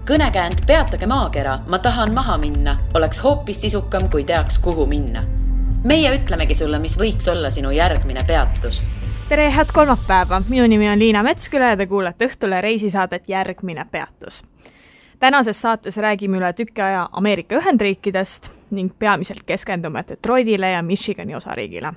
Kõnekäänd Peatage maakera, ma tahan maha minna, oleks hoopis sisukam, kui teaks, kuhu minna. Meie ütlemegi sulle, mis võiks olla sinu järgmine peatus. Tere, head kolmapäeva! Minu nimi on Liina Metsküla ja te kuulete Õhtule reisisaadet Järgmine peatus. Tänases saates räägime üle tükki aja Ameerika Ühendriikidest ning peamiselt keskendume Detroitile ja Michigani osariigile.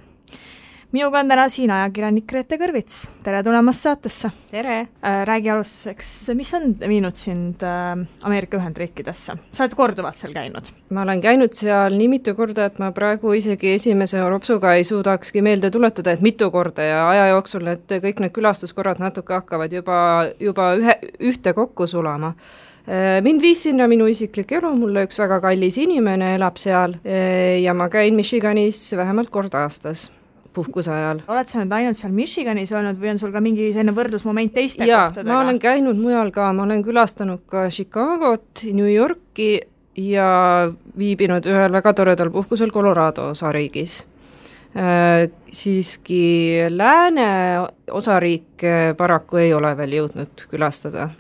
Minuga on täna siin ajakirjanik Grete Kõrvits. Tere tulemast saatesse! Tere! Räägi alustuseks, mis on viinud sind Ameerika Ühendriikidesse? Sa oled korduvalt seal käinud. Ma olen käinud seal nii mitu korda, et ma praegu isegi esimese ropsuga ei suudakski meelde tuletada, et mitu korda ja aja jooksul kõik need külastuskorrad natuke hakkavad juba ühte kokku sulama. Mind viis sinna minu isiklik elu, mulle üks väga kallis inimene elab seal ja ma käin Michiganis vähemalt kord aastas puhkuse ajal. Oled sa nüüd ainult seal Michiganis olnud või on sul ka mingi selline võrdlusmoment teiste kohtadega? Ma olen käinud mujal ka, ma olen külastanud ka Chicagot, New Yorki ja viibinud ühel väga toredal puhkusel Colorado osariigis. Siiski lääne osariik paraku ei ole veel jõudnud külastada.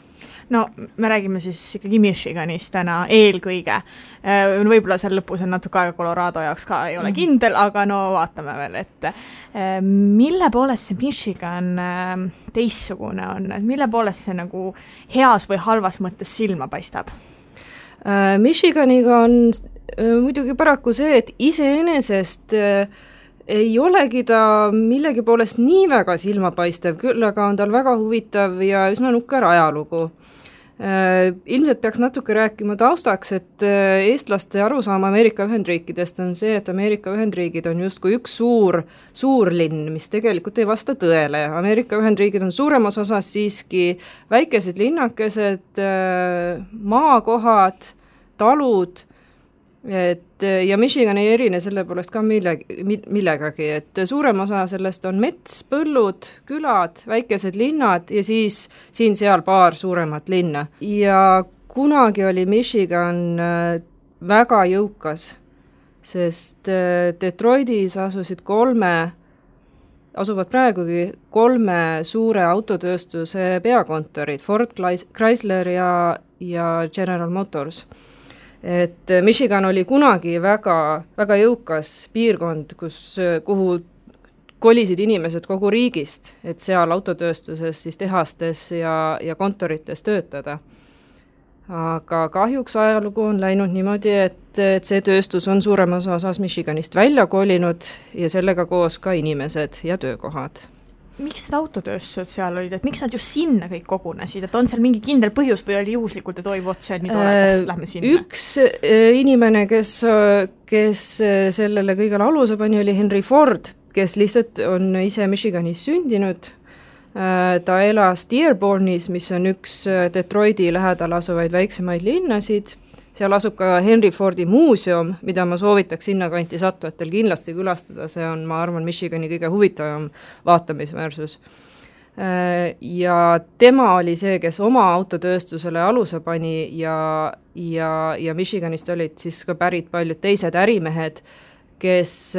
No, me räägime siis ikkagi Michiganist täna eelkõige. Võib-olla seal lõpus on natuke aega Colorado jaoks ka ei ole kindel, aga no vaatame veel, et mille poolest see Michigan teissugune on? Mille poolest see nagu heas või halvas mõttes silma paistab? Michiganiga on muidugi paraku see, et iseenesest ei olegi ta millegi poolest nii väga silmapaistev, küll aga on tal väga huvitav ja üsna nukker ajalugu. Ilmselt peaks natuke rääkima taustaks, et eestlaste arusaama Ameerika Ühendriikidest on see, et Ameerika Ühendriigid on justkui üks suur linn, mis tegelikult ei vasta tõele. Ameerika Ühendriigid on suuremas osas siiski väikesed linnakesed, maakohad, talud, ja Michigan ei erine selle poolest ka millegagi, et suurem osa sellest on mets, põllud, külad, väikesed linnad ja siis siin-seal paar suuremat linna. Ja kunagi oli Michigan väga jõukas, sest Detroitis asuvad praegugi 3 suure autotööstuse peakontorid, Ford, Chrysler ja General Motors. Et Michigan oli kunagi väga, väga jõukas piirkond, kuhu kolisid inimesed kogu riigist, et seal autotööstuses, siis tehastes ja kontorites töötada. Aga kahjuks ajalugu on läinud niimoodi, et see tööstus on suuremas osas Michiganist välja kolinud ja sellega koos ka inimesed ja töökohad. Miks need autotööstused seal olid, et miks nad just sinna kõik kogunesid, et on seal mingi kindel põhjus või oli juhuslikult, et toivu otsa nii tore, et lähme sinna? Üks inimene, kes sellele kõigele aluse pani, oli Henry Ford, kes lihtsalt on ise Michiganis sündinud. Ta elas Dearbornis, mis on üks Detroiti lähedal asuvaid väiksemaid linnasid. Seal asub ka Henry Fordi muuseum, mida ma soovitaks sinna kanti sattujatel kindlasti külastada. See on, ma arvan, Michigani kõige huvitavam vaatamisväärsus. Ja tema oli see, kes oma autotööstusele aluse pani ja Michiganist olid siis ka pärit paljud teised ärimehed, kes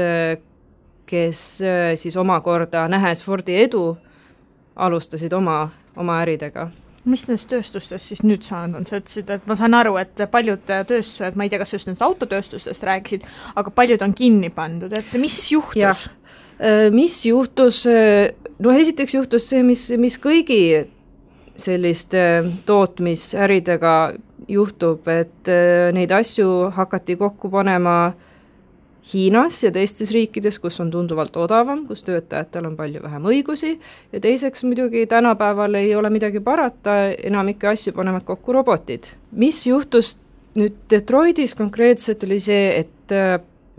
siis omakorda nähes Fordi edu alustasid oma äridega. Mis nendest tööstustest siis nüüd saanud on? Sa ütlesid, et ma saan aru, et paljud tööstused, ma ei tea, kas just nendest autotööstustest rääkisid, aga paljud on kinni pandud, et mis juhtus? Mis juhtus? No esiteks juhtus see, mis kõigi selliste tootmisäridega juhtub, et neid asju hakati kokku panema Hiinas ja teistes riikides, kus on tunduvalt odavam, kus töötajatel on palju vähem õigusi ja teiseks muidugi tänapäeval ei ole midagi parata, enamike asju panevad kokku robotid. Mis juhtus nüüd Detroitis konkreetselt oli see, et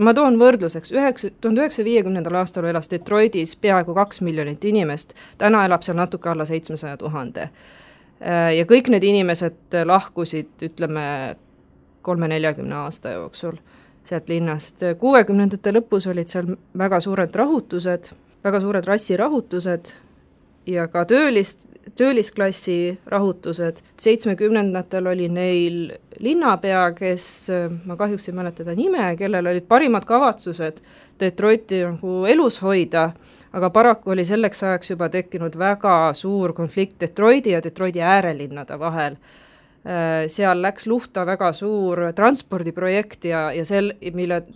ma toon võrdluseks, 1950. aastal elas Detroitis peaaegu 2 miljonit inimest, täna elab seal natuke alla 700 000. Ja kõik need inimesed lahkusid, ütleme, 30-40 aasta jooksul sealt linnast. 60. lõpus olid seal väga suured rahutused, väga suured rassirahutused ja ka töölisklassi rahutused. 70. oli neil linnapea, kes, ma kahjuks ei mäleta ta nime, kellel olid parimad kavatsused Detroiti nagu elus hoida, aga paraku oli selleks ajaks juba tekkinud väga suur konflikt Detroiti ja Detroiti äärelinnade vahel. seal läks luhta väga suur transpordiprojekt ja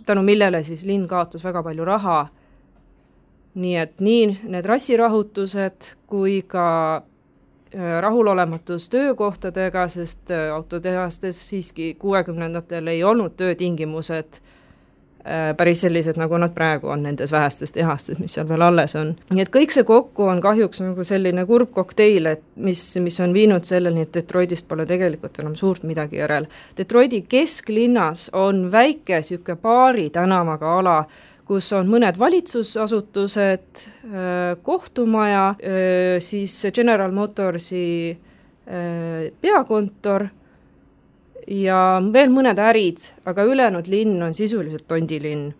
tänu millele siis linn kaotas väga palju raha. Nii et nii need rassirahutused kui ka rahulolematus töökohtadega, sest autotehastes siiski 60-ndatel ei olnud töötingimused päris sellised, nagu nad praegu on nendes vähestes tehastes, mis seal veel alles on. Nii et kõik see kokku on kahjuks nagu selline kurb kokteil, et mis on viinud selleni, et Detroitist pole tegelikult enam suurt midagi järel. Detroiti kesklinnas on väike siuke paari tänavaga ala, kus on mõned valitsusasutused, kohtumaja, siis General Motorsi peakontor ja veel mõned ärid, aga ülejäänud linn on sisuliselt tondilinn.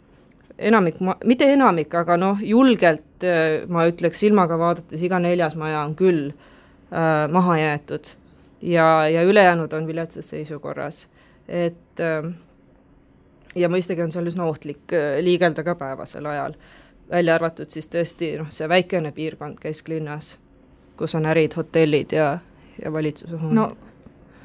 Mitte enamik, aga julgelt, ma ütleks silmaga vaadates, iga 4. maja on küll maha jäetud ja ülejäänud on viletsas seisukorras. Ja mõistagi on seal üsna ohtlik liigelda ka päevasel ajal. Välja arvatud siis tõesti see väikene piirkond kesklinnas, kus on ärid, hotellid ja valitsuse hooned. No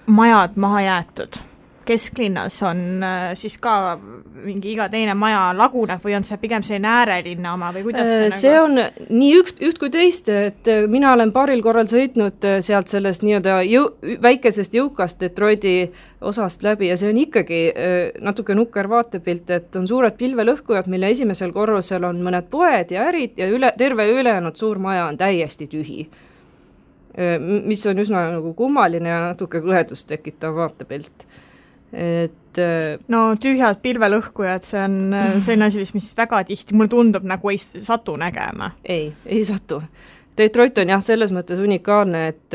majad maha jäetud. Kesklinnas on siis ka mingi iga teine maja laguneb või on see pigem selline äärelinna oma või kuidas see on nii üht kui teist, et mina olen paaril korral sõitnud sealt sellest nii-öelda väikesest jõukast Detroiti osast läbi ja see on ikkagi natuke nukker vaatepilt, et on suured pilvelõhkujad, mille esimesel korrusel on mõned poed ja ärid ja terve ülejäänud suur maja on täiesti tühi. Mis on üsna nagu kummaline ja natuke kõhedust tekitav vaatepilt. No tühjad pilvelõhkujad, see on selline asi, mis väga tihti, mulle tundub nagu ei satu nägema. Ei satu. Detroit on jah selles mõttes unikaalne, et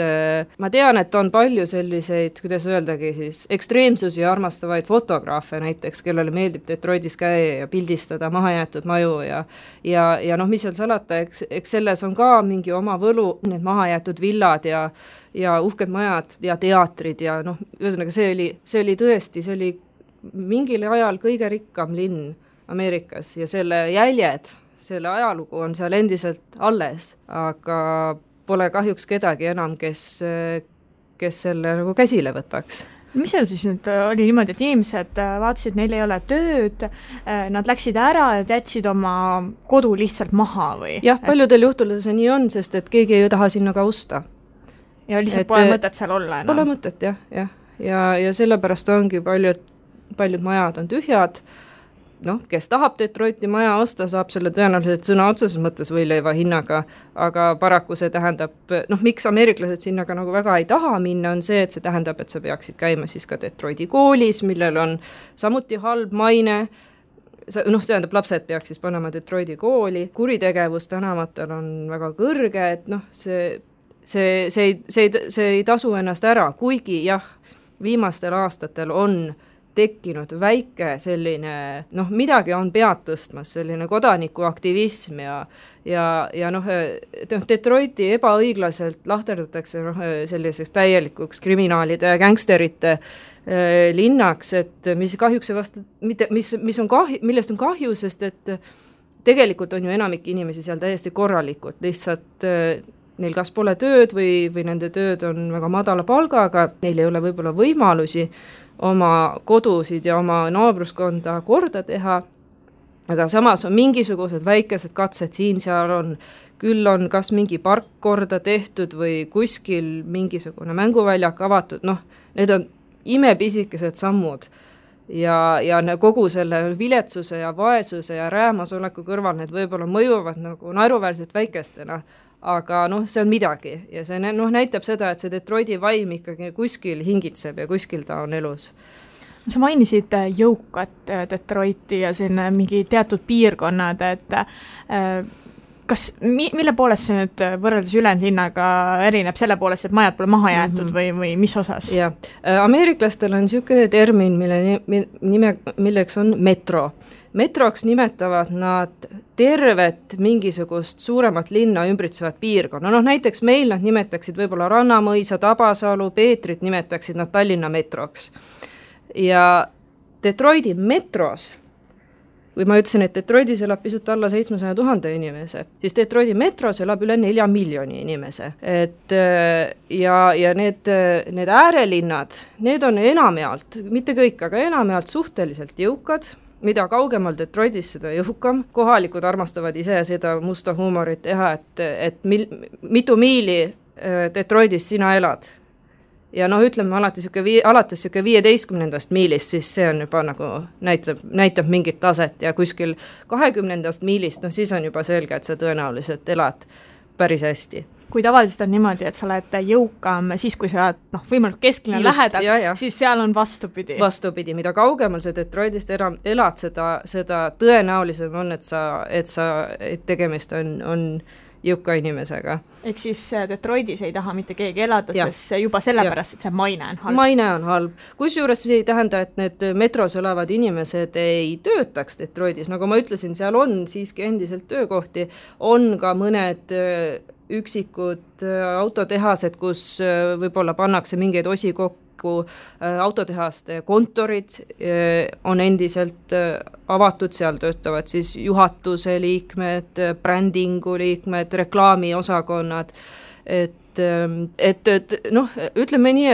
ma tean, et on palju selliseid, kuidas öeldagi siis, ekstreemsusi armastavaid fotograafe näiteks, kellele meeldib Detroitis käia ja pildistada mahajäetud maju ja mis seal salata, eks selles on ka mingi oma võlu, need mahajäetud villad ja uhked majad ja teatrid ja ühesõnaga see oli tõesti, see oli mingil ajal kõige rikkam linn Ameerikas ja selle jäljed, selle ajalugu on seal endiselt alles, aga pole kahjuks kedagi enam, kes selle nagu käsile võtaks. Mis seal siis nüüd oli niimoodi, et inimesed vaatasid, neil ei ole tööd, nad läksid ära ja jätsid oma kodu lihtsalt maha või? Jah, paljudel juhtudel see nii on, sest et keegi ei taha sinna ka osta. Ja lihtsalt pole mõtet seal olla enam? Pole mõtet, jah. Ja sellepärast ongi paljud majad on tühjad. Kes tahab Detroiti maja osta, saab selle tõenäoliselt sõna otseses mõttes võileiva hinnaga, aga paraku see tähendab, miks ameeriklased sinna ka nagu väga ei taha minna, on see, et see tähendab, et sa peaksid käima siis ka Detroiti koolis, millel on samuti halb maine, see tähendab, lapsed peaks siis panema Detroiti kooli, kuritegevus tänavatel on väga kõrge, et see ei tasu ennast ära, kuigi jah, viimastel aastatel on tekkinud väike selline, midagi on pead tõstmas, selline kodanikuaktivism ja Detroiti ebaõiglaselt lahterdatakse selliseks täielikuks kriminaalide ja gängsterite linnaks, et mis kahjuks millest on kahju, sest et tegelikult on ju enamik inimesi seal täiesti korralikud, lihtsalt neil kas pole tööd või nende tööd on väga madala palgaga, neil ei ole võib-olla võimalusi oma kodusid ja oma naabruskonda korda teha, aga samas on mingisugused väikesed katsed siin-seal on, küll on kas mingi park korda tehtud või kuskil mingisugune mänguväljak avatud, need on imepisikesed sammud ja kogu selle viletsuse ja vaesuse ja räämasoleku kõrval need võib-olla mõjuvad nagu naeruväärselt väikestena, aga see on midagi ja see näitab seda, et see Detroiti vaim ikkagi kuskil hingitseb ja kuskil ta on elus. Sa mainisid jõukat Detroiti ja selline mingi teatud piirkonnad, et mille poolest see nüüd võrreldes ülejäänud linnaga erineb selle poolest, et majad pole maha jäetud või mis osas? Jah, ameeriklastel on niisugune termin, milleks on metro. Metroks nimetavad nad tervet mingisugust suuremat linna ümbritsevat piirkonna. Näiteks meil nad nimetaksid võib-olla Rannamõisa, Tabasalu, Peetrit nimetaksid nad Tallinna metroks. Ja Detroiti metros kui ma ütlesin, et Detroitis elab pisut alla 700 000 inimese, siis Detroiti metros elab üle 4 miljoni inimese. Et ja need äärelinnad, need on enamjaolt, mitte kõik, aga enamjaolt suhteliselt jõukad, mida kaugemal Detroitis, seda jõukam. Kohalikud armastavad ise seda musta huumorit teha, et mitu miili Detroitis sina elad. Ja ütleme alates 15. miilist, siis see on juba nagu näitab mingit taset ja kuskil 20. miilist, siis on juba selge, et sa tõenäoliselt elad päris hästi. Kui tavaliselt on niimoodi, et sa oled jõukam siis, kui sa oled võimalik kesklinna lähedal, siis seal on vastupidi. Vastupidi, mida kaugemal sa Detroitist elad, seda tõenäolisem on, et tegemist on jõuka inimesega. Ehk siis Detroitis ei taha mitte keegi elada, sest juba sellepärast, et see maine on halb. Maine on halb. Kusjuures see ei tähenda, et need metros elavad inimesed ei töötaks Detroitis. Nagu ma ütlesin, seal on siiski endiselt töökohti, on ka mõned üksikud autotehased, kus võib-olla pannakse mingeid osi kokku, autotehaste kontorid on endiselt avatud, seal töötavad siis juhatuse liikmed, brändingu liikmed, reklaamiosakonnad, ütleme nii,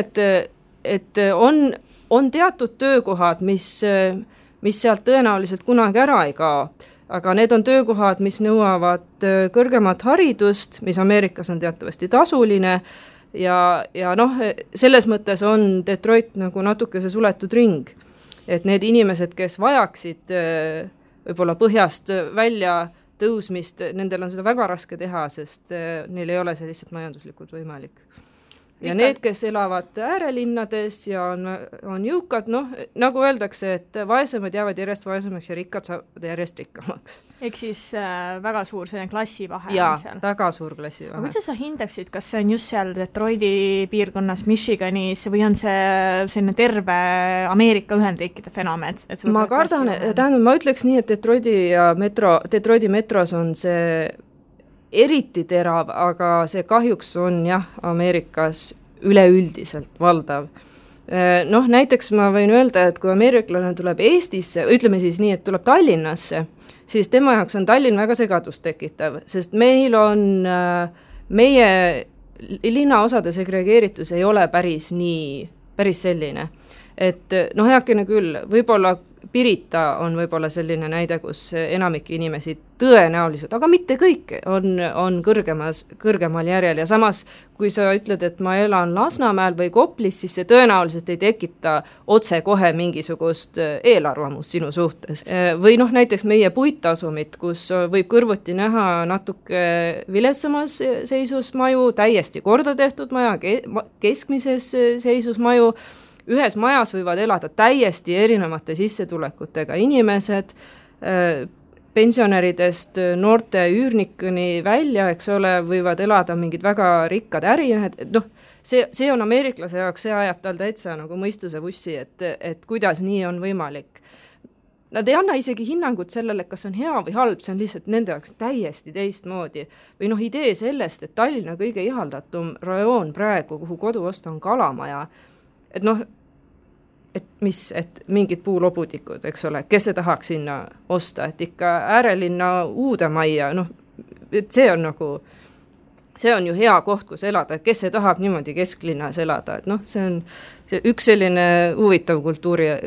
et on teatud töökohad, mis sealt tõenäoliselt kunagi ära ei kao, aga need on töökohad, mis nõuavad kõrgemat haridust, mis Ameerikas on teatavasti tasuline, ja selles mõttes on Detroit nagu natuke see suletud ring, et need inimesed, kes vajaksid võib-olla põhjast välja tõusmist, nendel on seda väga raske teha, sest neil ei ole see lihtsalt majanduslikult võimalik. Ja need, kes elavad äärelinnades ja on jõukad, nagu öeldakse, et vaesemad jäävad järjest vaesemaks ja rikkad saavad järjest rikkamaks. Ehk siis väga suur selline klassivahe on seal. Jaa, väga suur klassivahe. Aga kuidas sa hindaksid, kas see on just seal Detroiti piirkonnas, Michiganis või on see selline terve Ameerika Ühendriikide fenomen? Ma kardan, ma ütleks nii, et Detroiti metros on see eriti terav, aga see kahjuks on Ameerikas üleüldiselt valdav. Näiteks ma võin öelda, et kui ameeriklane tuleb Eestisse, ütleme siis nii, et tuleb Tallinnasse, siis tema jaoks on Tallinn väga segadust tekitav, sest meil on meie linnaosade segregeeritus ei ole päris selline. Et heakene küll, võib-olla Pirita on võib-olla selline näide, kus enamik inimesi tõenäoliselt, aga mitte kõik, on kõrgemal järjel ja samas, kui sa ütled, et ma elan Lasnamäel või Koplis, siis see tõenäoliselt ei tekita otse kohe mingisugust eelarvamust sinu suhtes. Või näiteks meie puittasumit, kus võib kõrvuti näha natuke viletsamas seisus maju, täiesti korda tehtud maja, keskmises seisus maju, ühes majas võivad elada täiesti erinevate sissetulekutega inimesed, pensionäridest noorte üürnikuni välja, eks ole, võivad elada mingid väga rikkad ärimehed, see on ameeriklase jaoks, see ajab tal täitsa nagu mõistuse vussi, et kuidas nii on võimalik. Nad ei anna isegi hinnangut sellele, kas on hea või halb, see on lihtsalt nende jaoks täiesti teistmoodi. Või idee sellest, et Tallinna kõige ihaldatum rajoon praegu, kuhu kodu osta on Kalamaja, et mingid puulobutikud, eks ole, kes see tahaks sinna osta, et ikka äärelinna uude majja, et see on ju hea koht, kus elada, et kes see tahab niimoodi kesklinnas elada, et see on üks selline huvitav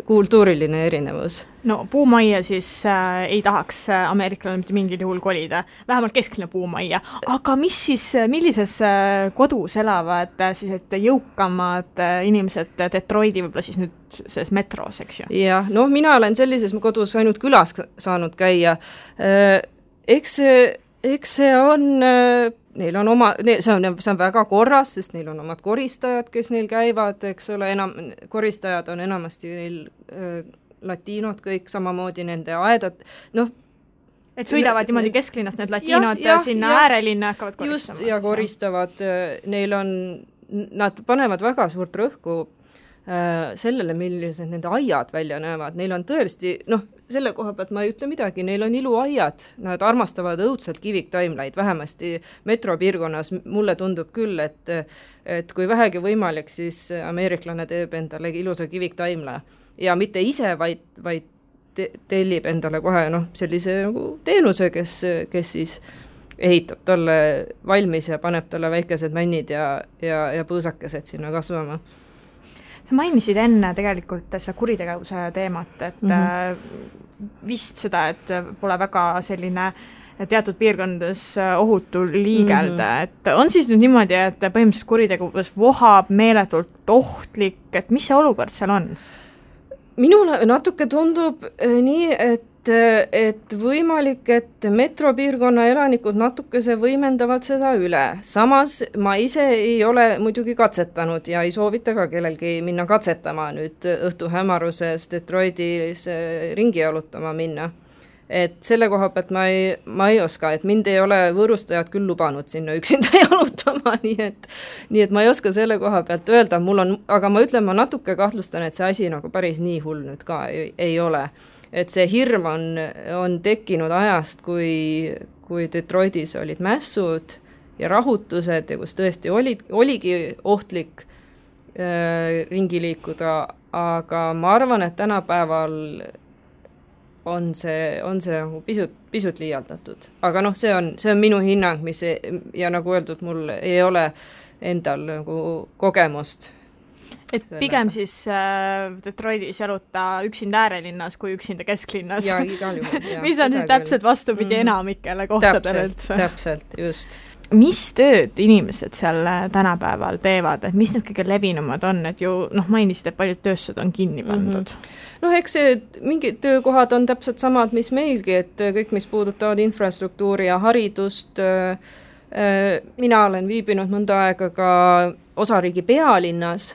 kultuuriline erinevus. Puumajja siis ei tahaks ameeriklane mitte mingil juhul kolida, vähemalt kesklinna puumajja, aga millises kodus elavad siis jõukamad inimesed Detroiti võib-olla siis nüüd selles metros, eks ju? Jah, mina olen sellises kodus ainult külas saanud käia, eks see on neil on see on väga korras, sest neil on omad koristajad, kes neil käivad, eks ole, koristajad on enamasti neil latiinod kõik, samamoodi nende aedad, et sõidavad niimoodi kesklinnast need latiinod sinna äärelinna hakkavad koristama. Just, ja koristavad, nad panevad väga suurt rõhku sellele, millised nende aiad välja näevad. Neil on tõesti, selle koha pealt ma ei ütle midagi, neil on iluaiad, nad armastavad õudselt kiviktaimlaid, vähemasti metropiirkonnas mulle tundub küll, et kui vähegi võimalik, siis ameeriklane teeb endale ilusa kiviktaimla ja mitte ise, vaid tellib endale kohe sellise nagu teenuse, kes siis ehitab talle valmis ja paneb talle väikesed männid ja põõsakesed sinna kasvama. Sa mainisid enne tegelikult seda kuritegevuse teemat, et vist seda, et pole väga selline teatud piirkondades ohutu liigelda, et on siis nüüd niimoodi, et põhimõtteliselt kuritegevus vohab meeletult ohtlik, et mis see olukord seal on? Minule natuke tundub nii, et võimalik, et metropiirkonna elanikud natukese võimendavad seda üle. Samas ma ise ei ole muidugi katsetanud ja ei soovita ka kellelgi minna katsetama nüüd õhtu hämaruses Detroitis ringi jalutama minna. Et selle koha pealt ma ei oska, et mind ei ole võõrustajad küll lubanud sinna üksinda jalutama, nii et ma ei oska selle koha pealt öelda, aga ma ütlen, ma natuke kahtlustan, et see asi nagu päris nii hull nüüd ka ei ole. Et see hirm on tekkinud ajast, kui Detroitis olid mässud ja rahutused ja kus tõesti oligi ohtlik ringi liikuda, aga ma arvan, et tänapäeval on see nagu pisut liialdatud. Aga see on minu hinnang, ja nagu öeldud, mul ei ole endal nagu kogemust. Et pigem siis Detroitis jaluta üksinda äärelinnas kui üksinda kesklinnas. Ja igal juhul. Mis on siis täpselt vastupidi enamikele kohtadele üldse. Täpselt, just. Mis tööd inimesed seal tänapäeval teevad, et mis need kõige levinumad on, et ju mainisid, et paljud tööstused on kinni pandud? Eks mingid töökohad on täpselt samad, mis meilgi, et kõik, mis puudutavad infrastruktuuri ja haridust. Mina olen viibinud mõnda aega ka osariigi pealinnas,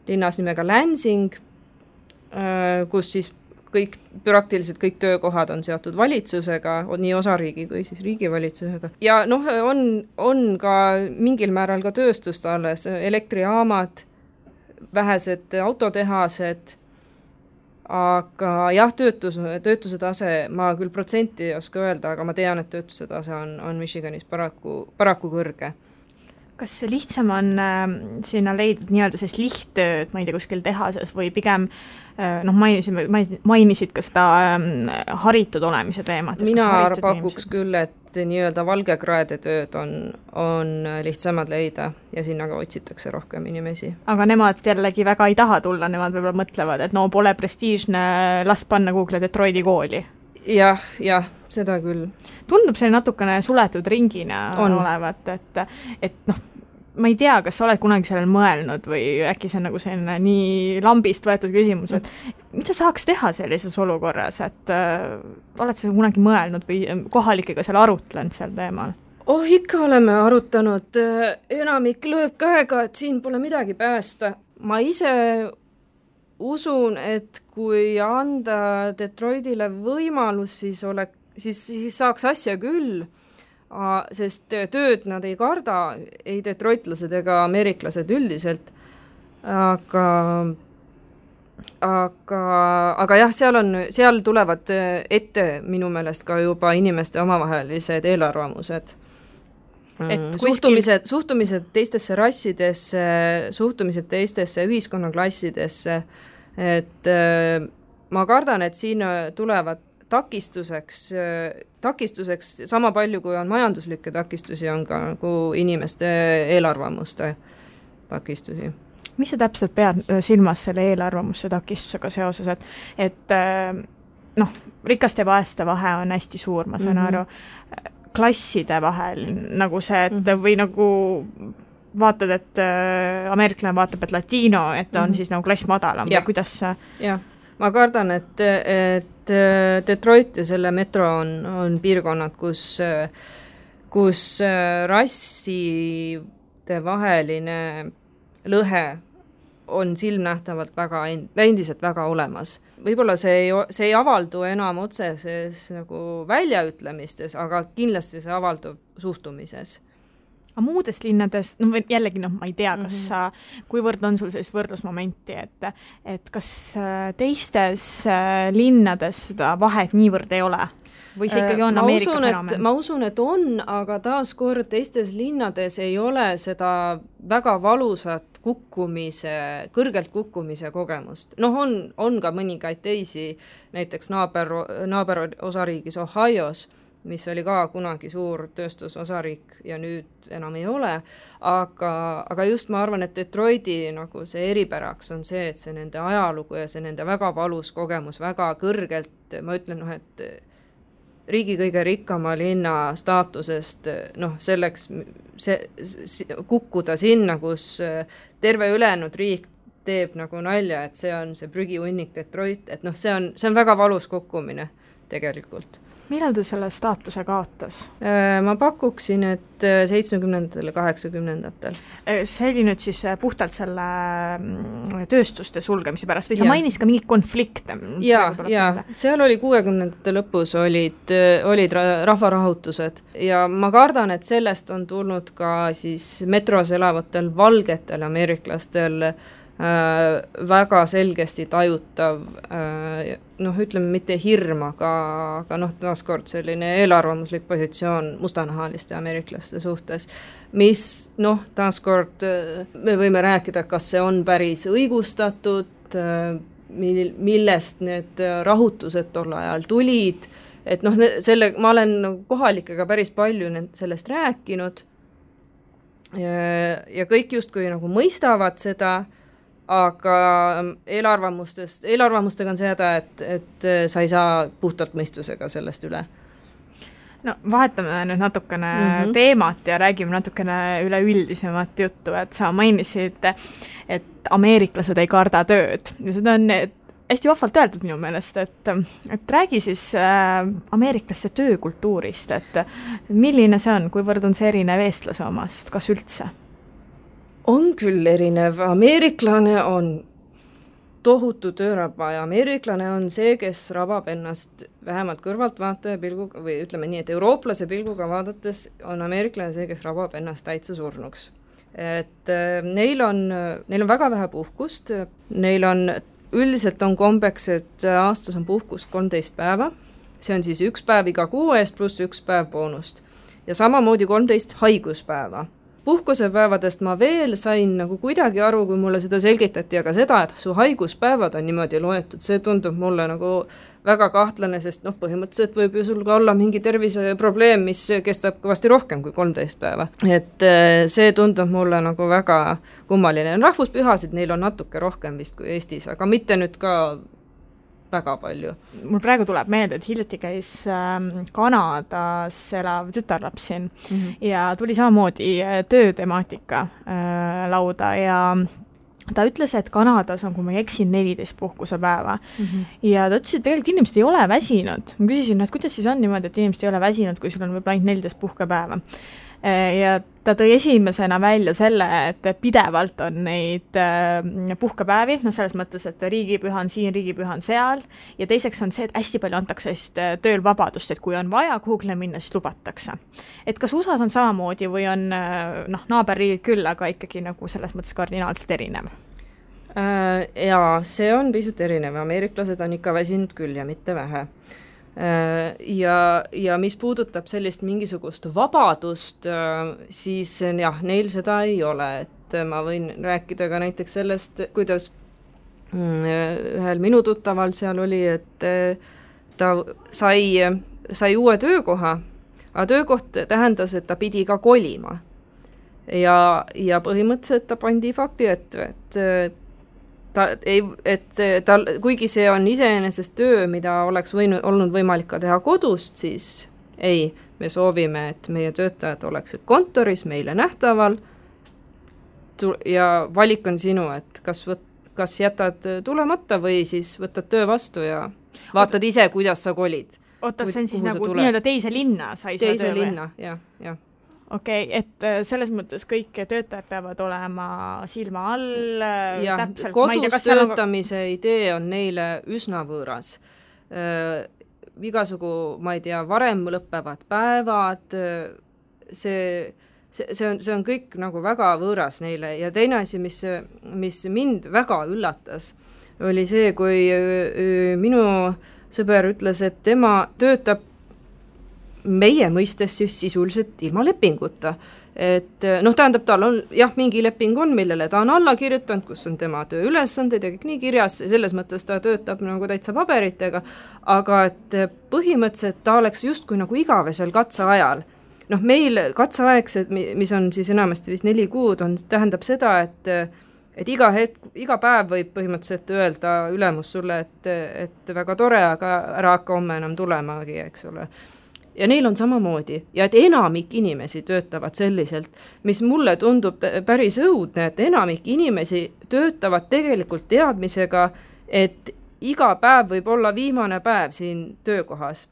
linnas nimega Lansing, kus siis praktiliselt kõik töökohad on seotud valitsusega, nii osariigi kui siis riigivalitsusega. Ja on ka mingil määral ka tööstust alles, elektrijaamad, vähesed autotehased, aga jah, töötuse tase, ma küll protsenti ei oska öelda, aga ma tean, et töötuse tase on Michiganis paraku kõrge. Kas see lihtsam on sinna leidnud nii-öelda sellist lihttööd, ma ei tea, kuskil tehases või pigem mainisid ka seda haritud olemise teemat? Mina pakuks küll, et nii-öelda valgekraede tööd on lihtsamad leida ja sinna ka otsitakse rohkem inimesi. Aga nemad jällegi väga ei taha tulla, nemad võib-olla mõtlevad, et pole prestiižne, las panna Google Detroiti kooli. Jah, seda küll. Tundub see natukene suletud ringina olevat, et ma ei tea, kas sa oled kunagi sellel mõelnud või äkki see on nagu selline nii lambist võetud küsimus, et mida saaks teha sellises olukorras, et oled sa kunagi mõelnud või kohalikega seal arutlenud seal teemal? Ikka oleme arutanud, enamik lööb käega, et siin pole midagi päästa. Ma ise usun, et kui anda Detroitile võimalus, siis saaks asja küll, sest tööd nad ei karda, ei detroitlased ega ameeriklased üldiselt, aga jah, seal tulevad ette minu meelest ka juba inimeste omavahelised eelarvamused. Suhtumised teistesse rassidesse, suhtumised teistesse ühiskonnaklassidesse, et ma kardan, et siin tulevad takistuseks sama palju, kui on majanduslikke takistusi, on ka nagu inimeste eelarvamuste takistusi. Mis sa täpselt pead silmas selle eelarvamuste takistusega seoses, et rikaste ja vaeste vahe on hästi suur, ma saan aru, klasside vahel nagu see, et või nagu vaatad, et ameeriklane vaatab, et latino, et on siis nagu klass madalam või kuidas see? Jah, ma kardan, et Detroit ja selle metro on piirkonnad, kus rasside vaheline lõhe on silmnähtavalt endiselt väga olemas. Võib-olla see ei avaldu enam otseses nagu väljaütlemistes, aga kindlasti see avaldub suhtumises. Aga muudes linnades, jällegi ma ei tea, kas kuivõrd on sul sellist võrdlusmomenti, et kas teistes linnades seda vahet niivõrd ei ole? või see ikkagi on Ameerika fenomen? Ma usun, et on, aga taaskord teistes linnades ei ole seda väga valusat kõrgelt kukkumise kogemust. On ka mõningaid teisi, näiteks naaber osariigis Ohios, mis oli ka kunagi suur tööstusosariik ja nüüd enam ei ole, aga just ma arvan, et Detroiti nagu see eripäraks on see, et see nende ajalugu ja see nende väga valus kogemus väga kõrgelt, ma ütlen, et riigi kõige rikkama linna staatusest, selleks kukkuda sinna, kus terve ülejäänud riik teeb nagu nalja, et see on see prügihunnik Detroit, et see on väga valus kukkumine tegelikult. Millal ta selle staatuse kaotas? Ma pakuksin, et 70-ndatel ja 80-ndatel. See oli nüüd siis puhtalt selle tööstuste sulgemise pärast või sa mainis ka mingid konflikte? Ja, seal oli 60-ndate lõpus olid rahvarahutused ja ma kardan, et sellest on tulnud ka siis metros elavatel valgetel ameeriklastel väga selgesti tajutav, ütleme mitte hirm, aga taaskord selline eelarvamuslik positsioon mustanahaliste ameeriklaste suhtes, mis taaskord me võime rääkida, kas see on päris õigustatud, millest need rahutused tol ajal tulid, et ma olen kohalikega päris palju sellest rääkinud ja kõik justkui nagu mõistavad seda, aga eelarvamustega on seda, et sa ei saa puhtalt mõistusega sellest üle. Vahetame nüüd natukene teemat ja räägime natukene üleüldisemat juttu, et sa mainisid, et ameeriklased ei karda tööd ja seda on hästi vahvalt öeldud minu meelest, et räägi siis ameeriklaste töökultuurist, et milline see on, kuivõrd on see erinev eestlase omast, kas üldse? On küll erinev. Ameeriklane on tohutu tööraba ja ameeriklane on see, kes rabab ennast vähemalt kõrvaltvaataja pilguga või ütleme nii, et eurooplase pilguga vaadates on ameeriklane see, kes rabab ennast täitsa surnuks. Et neil on väga vähe puhkust, üldiselt on kombeks, et aastas on puhkust 13 päeva, see on siis 1 päev iga kuu eest pluss 1 päev boonust ja samamoodi 13 haiguspäeva. Puhkusepäevadest ma veel sain nagu kuidagi aru, kui mulle seda selgitati, aga seda, et su haiguspäevad on niimoodi loetud, see tundub mulle nagu väga kahtlane, sest põhimõtteliselt võib ju sul ka olla mingi terviseprobleem, mis kestab kõvasti rohkem kui 13 päeva. Et see tundub mulle nagu väga kummaline. Rahvuspühasid neil on natuke rohkem vist kui Eestis, aga mitte nüüd ka väga palju. Mul praegu tuleb meelde, et hiljuti käis Kanadas elav tütarlaps siin ja tuli samamoodi töötemaatika lauda ja ta ütles, et Kanadas on, kui ma ei eksin, 14 puhkusepäeva. Ja ta ütles, et tegelikult inimesed ei ole väsinud. Ma küsisin, et kuidas siis on niimoodi, et inimesed ei ole väsinud, kui sul on võib-olla ainult 14 puhkepäeva. Ja ta tõi esimesena välja selle, et pidevalt on neid puhkepäevi, selles mõttes, et riigipüha on siin, riigipüha on seal ja teiseks on see, et hästi palju antakse tööl vabadust, et kui on vaja kuhugle minna, siis lubatakse. Et kas USA-s on samamoodi või on naaberriigid küll, aga ikkagi nagu selles mõttes kardinaalselt erinev? Jaa, see on pisut erinev. Ameeriklased on ikka väsinud küll ja mitte vähe. Ja mis puudutab sellist mingisugust vabadust, siis jah, neil seda ei ole, et ma võin rääkida ka näiteks sellest, kuidas ühel minu tuttaval seal oli, et ta sai uue töökoha, aga töökoht tähendas, et ta pidi ka kolima ja põhimõtteliselt ta pandi fakti, et kuigi see on iseenesest töö, mida oleks olnud võimalik ka teha kodust, siis ei, me soovime, et meie töötajad oleksid kontoris meile nähtaval ja valik on sinu, et kas jätad tulemata või siis võtad töö vastu ja vaatad ise, kuidas sa kolid. Oota, see on siis nagu nii-öelda teise linna sai seda töö või? Teise linna, jah. Okei, et selles mõttes kõik töötajad peavad olema silma all. Ja, kodus töötamise idee on neile üsna võõras. Igasugu, ma ei tea, varem lõppevad päevad, see on kõik nagu väga võõras neile ja teine asi, mis mind väga üllatas, oli see, kui minu sõber ütles, et tema töötab meie mõistes siis sisuliselt ilma lepinguta. Et noh, tähendab, tal on jah, mingi leping on, millele ta on alla kirjutanud, kus on tema tööülesanded ja kõik nii kirjas, selles mõttes ta töötab nagu täitsa paberitega, aga et põhimõtteliselt ta oleks justkui nagu igavesel katseajal. Noh, meil katseaegsed, mis on siis enamasti vist 4 kuud, tähendab seda, et iga päev võib põhimõtteliselt öelda ülemus sulle, et väga tore, aga ära hakka homme enam tulemagi, eks ole. Ja neil on samamoodi ja et enamik inimesi töötavad selliselt, mis mulle tundub päris õudne, et enamik inimesi töötavad tegelikult teadmisega, et iga päev võib olla viimane päev siin töökohas.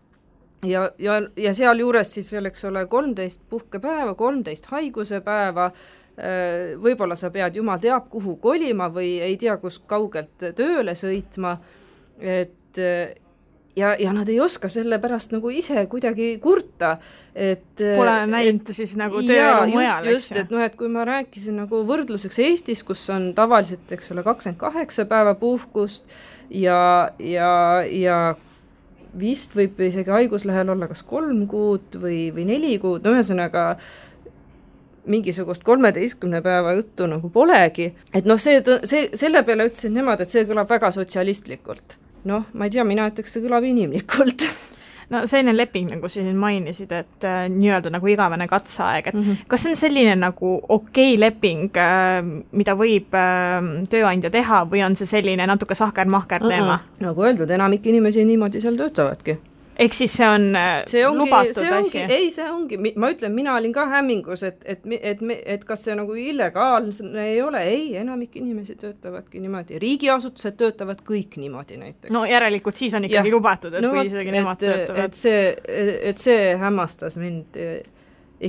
Ja seal juures siis veel, eks ole, 13 puhkepäeva, 13 haiguse päeva, võib-olla sa pead jumal teab kuhu kolima või ei tea, kus kaugelt tööle sõitma, et ja nad ei oska selle pärast nagu ise kuidagi kurta, et pole näinud siis nagu tööelu mujal, just, et noh, et kui ma rääkisin nagu võrdluseks Eestis, kus on tavaliselt, eks ole, 28 päeva puhkust ja vist võib isegi haiguslehel olla kas 3 kuud või 4 kuud, no ühesõnaga mingisugust 13 päeva juttu nagu polegi, et noh, selle peale ütlesin nemad, et see kõlab väga sotsialistlikult. Noh, ma ei tea, mina ütleks, see kõlab inimlikult. No selline leping, nagu siin mainisid, et nii-öelda nagu igavene katseaeg, et kas see on selline nagu okei leping, mida võib tööandja teha või on see selline natuke sahker-mahker teema? Nagu öeldud, enamik inimesi niimoodi seal töötavadki. Ehk siis see on lubatud asi? Ei, see ongi, ma ütlen, mina olin ka hämmingus, et kas see nagu illegaalne ei ole, ei, enamik inimesi töötavadki niimoodi, riigiasutused töötavad kõik niimoodi näiteks. No järelikult siis on ikkagi lubatud, et kui isegi nemad töötavad. Et see hämmastas mind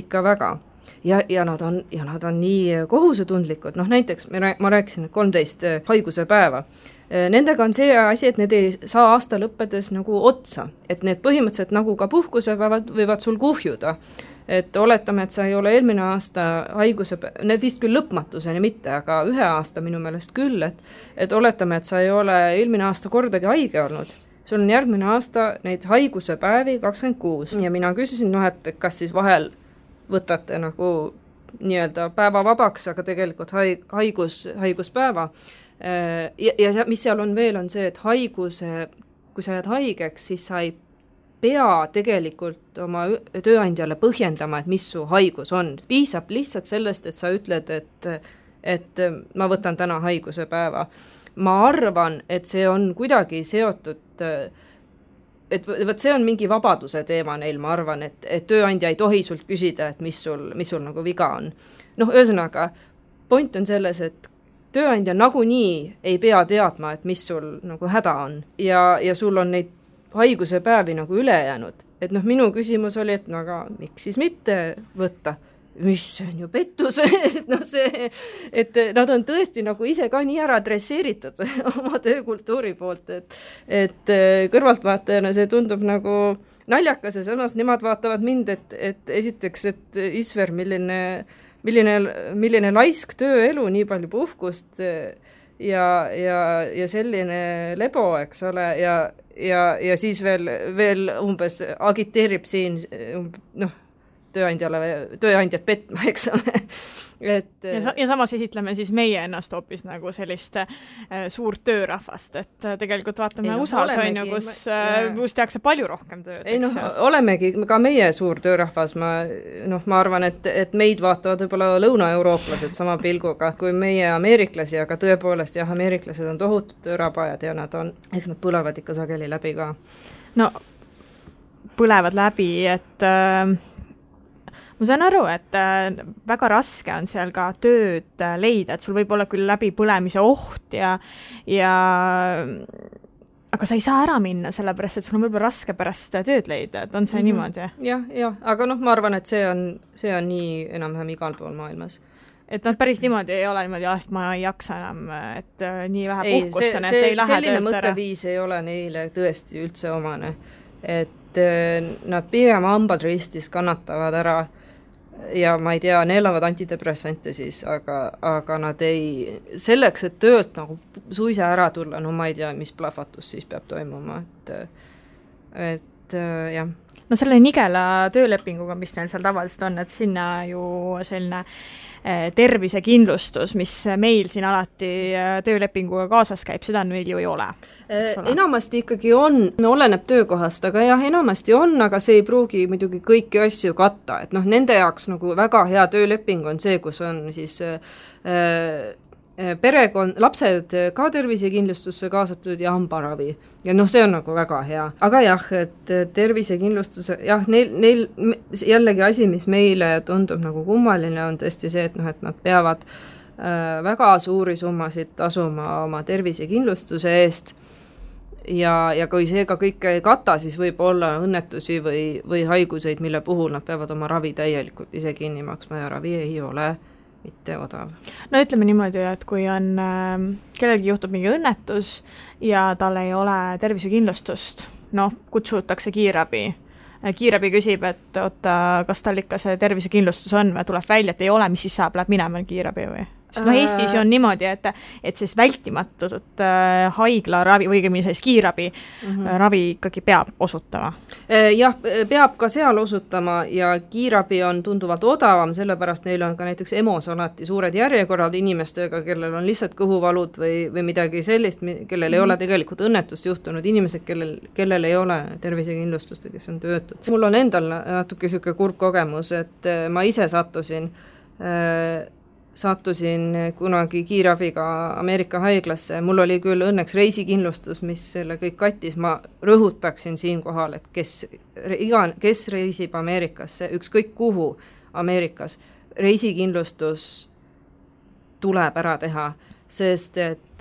ikka väga. Ja nad on nii kohusetundlikud, noh näiteks ma rääkisin 13 haiguse päeva. Nendega on see asi, et need ei saa aasta lõppedes nagu otsa, et need põhimõtteliselt nagu ka puhkusepäevad võivad sul kuhjuda. Et oletame, et sa ei ole eelmine aasta need vist küll lõpmatuseni mitte, aga 1 aasta minu meelest küll, et oletame, et sa ei ole eelmine aasta kordagi haige olnud. Sul on järgmine aasta neid haiguse päevi 26 ja mina küsisin, et kas siis vahel võtate nagu nii-öelda päeva vabaks, aga tegelikult haiguspäeva. Ja mis seal on veel, on see, et kui sa jääd haigeks, siis sa ei pea tegelikult oma tööandjale põhjendama, et mis su haigus on. Piisab lihtsalt sellest, et sa ütled, et ma võtan täna haiguse päeva. Ma arvan, et see on kuidagi seotud, et see on mingi vabaduse teema neil, ma arvan, et tööandja ei tohi sult küsida, et mis sul nagu viga on. Noh, ühesõnaga, point on selles, et tööandja nagunii ei pea teadma, et mis sul nagu häda on ja sul on neid haiguse päevi nagu üle jäänud. Et noh, minu küsimus oli, et no aga miks siis mitte võtta? Mis see on ju pettus, et nad on tõesti nagu ise ka nii ära adresseeritud oma töökultuuri poolt, et kõrvaltvaatajana see tundub nagu naljakas ja samas nemad vaatavad mind, et esiteks, et Isver, milline laisk tööelu, nii palju puhkust ja selline lebo, eks ole, ja siis veel umbes agiteerib siin tööandjat petma, eks ole. Ja samas esitleme siis meie ennast hoopis nagu sellist suurt töörahvast, et tegelikult vaatame USA-s on ju, kus tehakse palju rohkem tööd. Ei noh, olemegi ka meie suur töörahvas, ma arvan, et meid vaatavad võib-olla lõunaeurooplased sama pilguga kui meie ameeriklasi, aga tõepoolest jah, ameeriklased on tohutud töörabajad ja eks nad põlevad ikka sageli läbi ka. No, põlevad läbi, et ma saan aru, et väga raske on seal ka tööd leida, et sul võib olla küll läbi põlemise oht aga sa ei saa ära minna, sellepärast, et sul on võib-olla raske pärast tööd leida, et on see niimoodi? Jah, aga ma arvan, et see on nii enam-vähem igal pool maailmas. Et nad päris niimoodi ei ole niimoodi, et ma ei jaksa enam, et nii vähe puhkust on, et ei lähe selline mõtteviis ei ole neile tõesti üldse omane, et nad pigem hambad ristis kannatavad ära ja ma ei tea, neelavad antidepressante siis, aga nad selleks, et töölt nagu suisa ära tulla, no ma ei tea, mis plahvatus siis peab toimuma, et et jah. No selle nigela töölepinguga, mis neil seal tavaliselt on, et sinna ju selline tervisekindlustus, mis meil siin alati töölepinguga kaasas käib, seda meil ju ei ole. Enamasti ikkagi on, oleneb töökohast, aga jah, enamasti on, aga see ei pruugi muidugi kõiki asju katta, et noh, nende jaoks nagu väga hea tööleping on see, kus on siis perekond, lapsed ka tervisekindlustusse kaasatud ja hambaravi. Ja noh, see on nagu väga hea. Aga jah, et tervisekindlustuse, jah, neil jällegi asi, mis meile tundub nagu kummaline, on tõesti see, et noh, et nad peavad väga suuri summasid tasuma oma tervisekindlustuse eest ja kui see ka kõike ei kata, siis võib olla õnnetusi või haiguseid, mille puhul nad peavad oma ravi täielikult ise kinni maksma ja ravi ei ole mitte odav. No ütleme niimoodi, et kui on kellelgi juhtub mingi õnnetus ja tal ei ole tervisekindlustust, noh, kutsutakse kiirabi. Kiirabi küsib, et oota, kas tal ikka see tervisekindlustus on või tuleb välja, et ei ole, mis siis saab, läheb minema kiirabi või? Sest no Eestis on niimoodi, et siis vältimatut haigla ravi või siis kiirabi ravi ikkagi peab osutama. Jah, peab ka seal osutama ja kiirabi on tunduvalt odavam, sellepärast neil on ka näiteks EMO-s alati suured järjekorrad inimestega, kellel on lihtsalt kõhuvalud või midagi sellist, kellel ei ole tegelikult õnnetust juhtunud, inimesed, kellel ei ole tervisekindlustust või kes on töötud. Mul on endal natuke selline kurb kogemus, et ma ise sattusin kunagi kiirabiga Ameerika haiglasse. Mul oli küll õnneks reisikindlustus, mis selle kõik kattis. Ma rõhutaksin siin kohal, et kes reisib Ameerikasse, ükskõik kuhu Ameerikas, reisikindlustus tuleb ära teha, sest et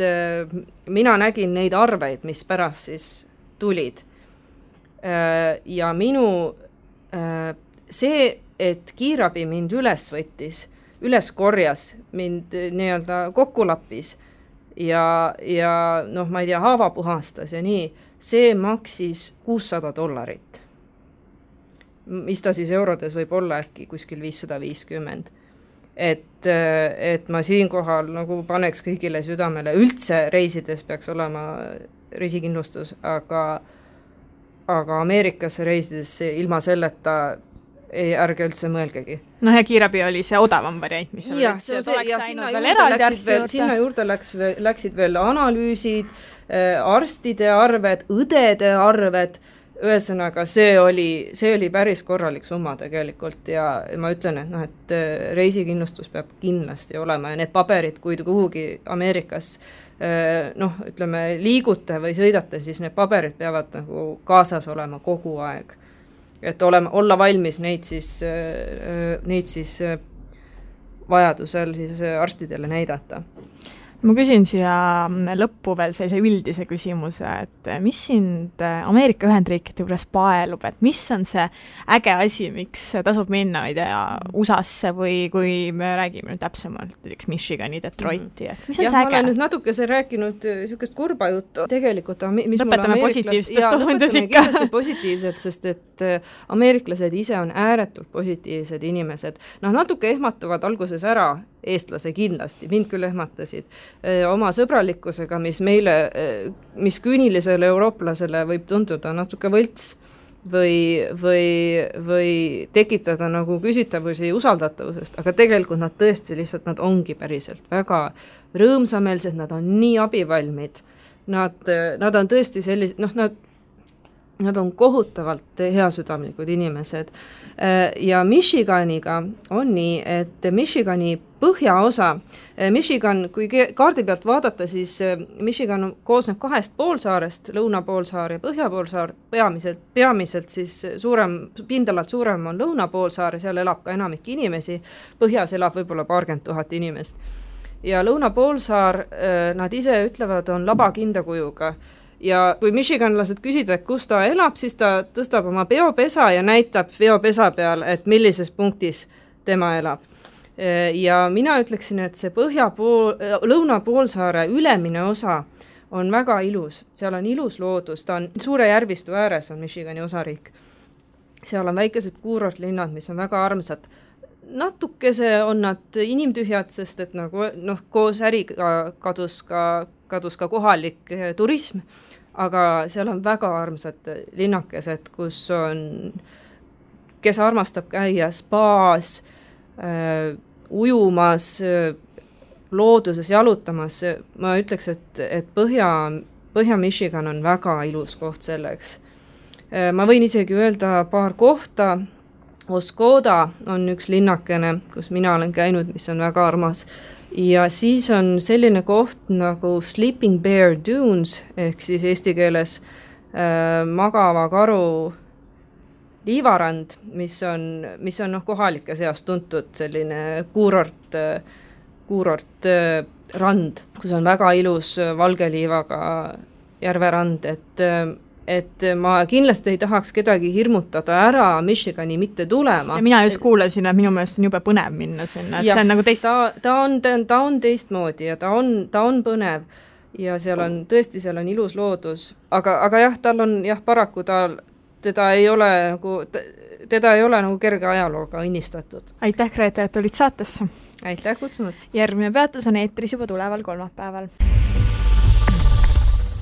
mina nägin neid arveid, mis pärast siis tulid. Ja see, et kiirabi mind üles korjas, mind nii-öelda kokku lappis ja noh, ma ei tea, haava puhastas ja nii, see maksis $600. Mis ta siis eurodes võib olla äkki kuskil 550. Et ma siinkohal nagu paneks kõigile südamele, üldse reisides peaks olema reisikindlustus, aga Ameerikasse reisides ilma selleta ärge üldse mõelgegi. No ja kiirabi oli see odavam variant, mis oli, sinna juurde läksid veel analüüsid, arstide arved, õdede arved, ühesõnaga see oli päris korralik summa tegelikult ja ma ütlen, et, noh, et reisikindlustus peab kindlasti olema ja need paberid, kui kuhugi Ameerikas noh, ütleme, liigute või sõidate, siis need paberid peavad nagu kaasas olema kogu aeg. Et olla valmis neid siis vajadusel siis arstidele näidata. Ma küsin siia lõppu veel sellise üldise küsimuse, et mis sind Ameerika Ühendriikide juures paelub, et mis on see äge asi, miks tasub minna, ei tea, USA-sse või kui me räägime täpsemalt, näiteks Michigani, Detroiti, et mis on see äge? Ma olen nüüd natukese rääkinud niisugust kurba juttu. Tegelikult, lõpetame positiivsetest tohundas ikka. Kindlasti positiivselt, sest et ameeriklased ise on ääretult positiivsed inimesed. Noh, natuke ehmatavad alguses ära eestlase kindlasti, mind küll ehmatasid oma sõbralikkusega, mis küünilisele eurooplasele võib tunduda natuke võlts või tekitada nagu küsitavusi usaldatavusest, aga tegelikult nad tõesti lihtsalt, nad ongi päriselt väga rõõmsameelsed, nad on nii abivalmid, nad on tõesti sellised, noh, nad on kohutavalt heasüdamlikud inimesed ja Michiganiga on nii, et Michigani põhjaosa, Michigan, kui kaardi pealt vaadata, siis Michigan koosneb 2 poolsaarest, lõunapoolsaar ja põhjapoolsaar, peamiselt siis pindalalt suurem on lõunapoolsaar ja seal elab ka enamik inimesi, põhjas elab võib-olla 20 000 inimest. Ja lõunapoolsaar, nad ise ütlevad, on labakinda kujuga. Ja kui michiganlased küsida, et kus ta elab, siis ta tõstab oma peopesa ja näitab peopesa peal, et millises punktis tema elab. Ja mina ütleksin, et see lõunapoolsaare ülemine osa on väga ilus. Seal on ilus loodus, ta on suure järvistu ääres on Michigani osariik. Seal on väikesed kuurortlinnad, mis on väga armsad. Natukese on nad inimtühjad, sest et nagu, noh, koos äriga kadus ka kohalik turism, aga seal on väga armsad linnakesed, kes armastab käia spaas, ujumas, looduses jalutamas. Ma ütleks, et Põhja-Michigan on väga ilus koht selleks. Ma võin isegi öelda paar kohta. Oscoda on üks linnakene, kus mina olen käinud, mis on väga armas. Ja siis on selline koht nagu Sleeping Bear Dunes, ehk siis eesti keeles magava karu liivarand, mis on kohalike seas tuntud selline kuurort rand, kus on väga ilus valge liivaga järverand, et ma kindlasti ei tahaks kedagi hirmutada ära Michigani mitte tulema. Ja mina just kuulasin, et minu meelest on jube põnev minna sinna, et see on nagu ta on teistmoodi ja ta on põnev ja seal on ilus loodus, aga jah, tal on paraku teda ei ole nagu kerge ajalooga õnnistatud. Aitäh, Grete, et olid saatesse. Aitäh kutsumast. Järgmine peatus on eetris juba tuleval kolmapäeval.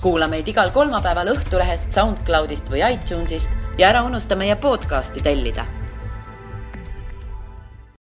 Kuula meid igal kolmapäeval Õhtulehest, SoundCloudist või iTunesist ja ära unusta meie podcasti tellida.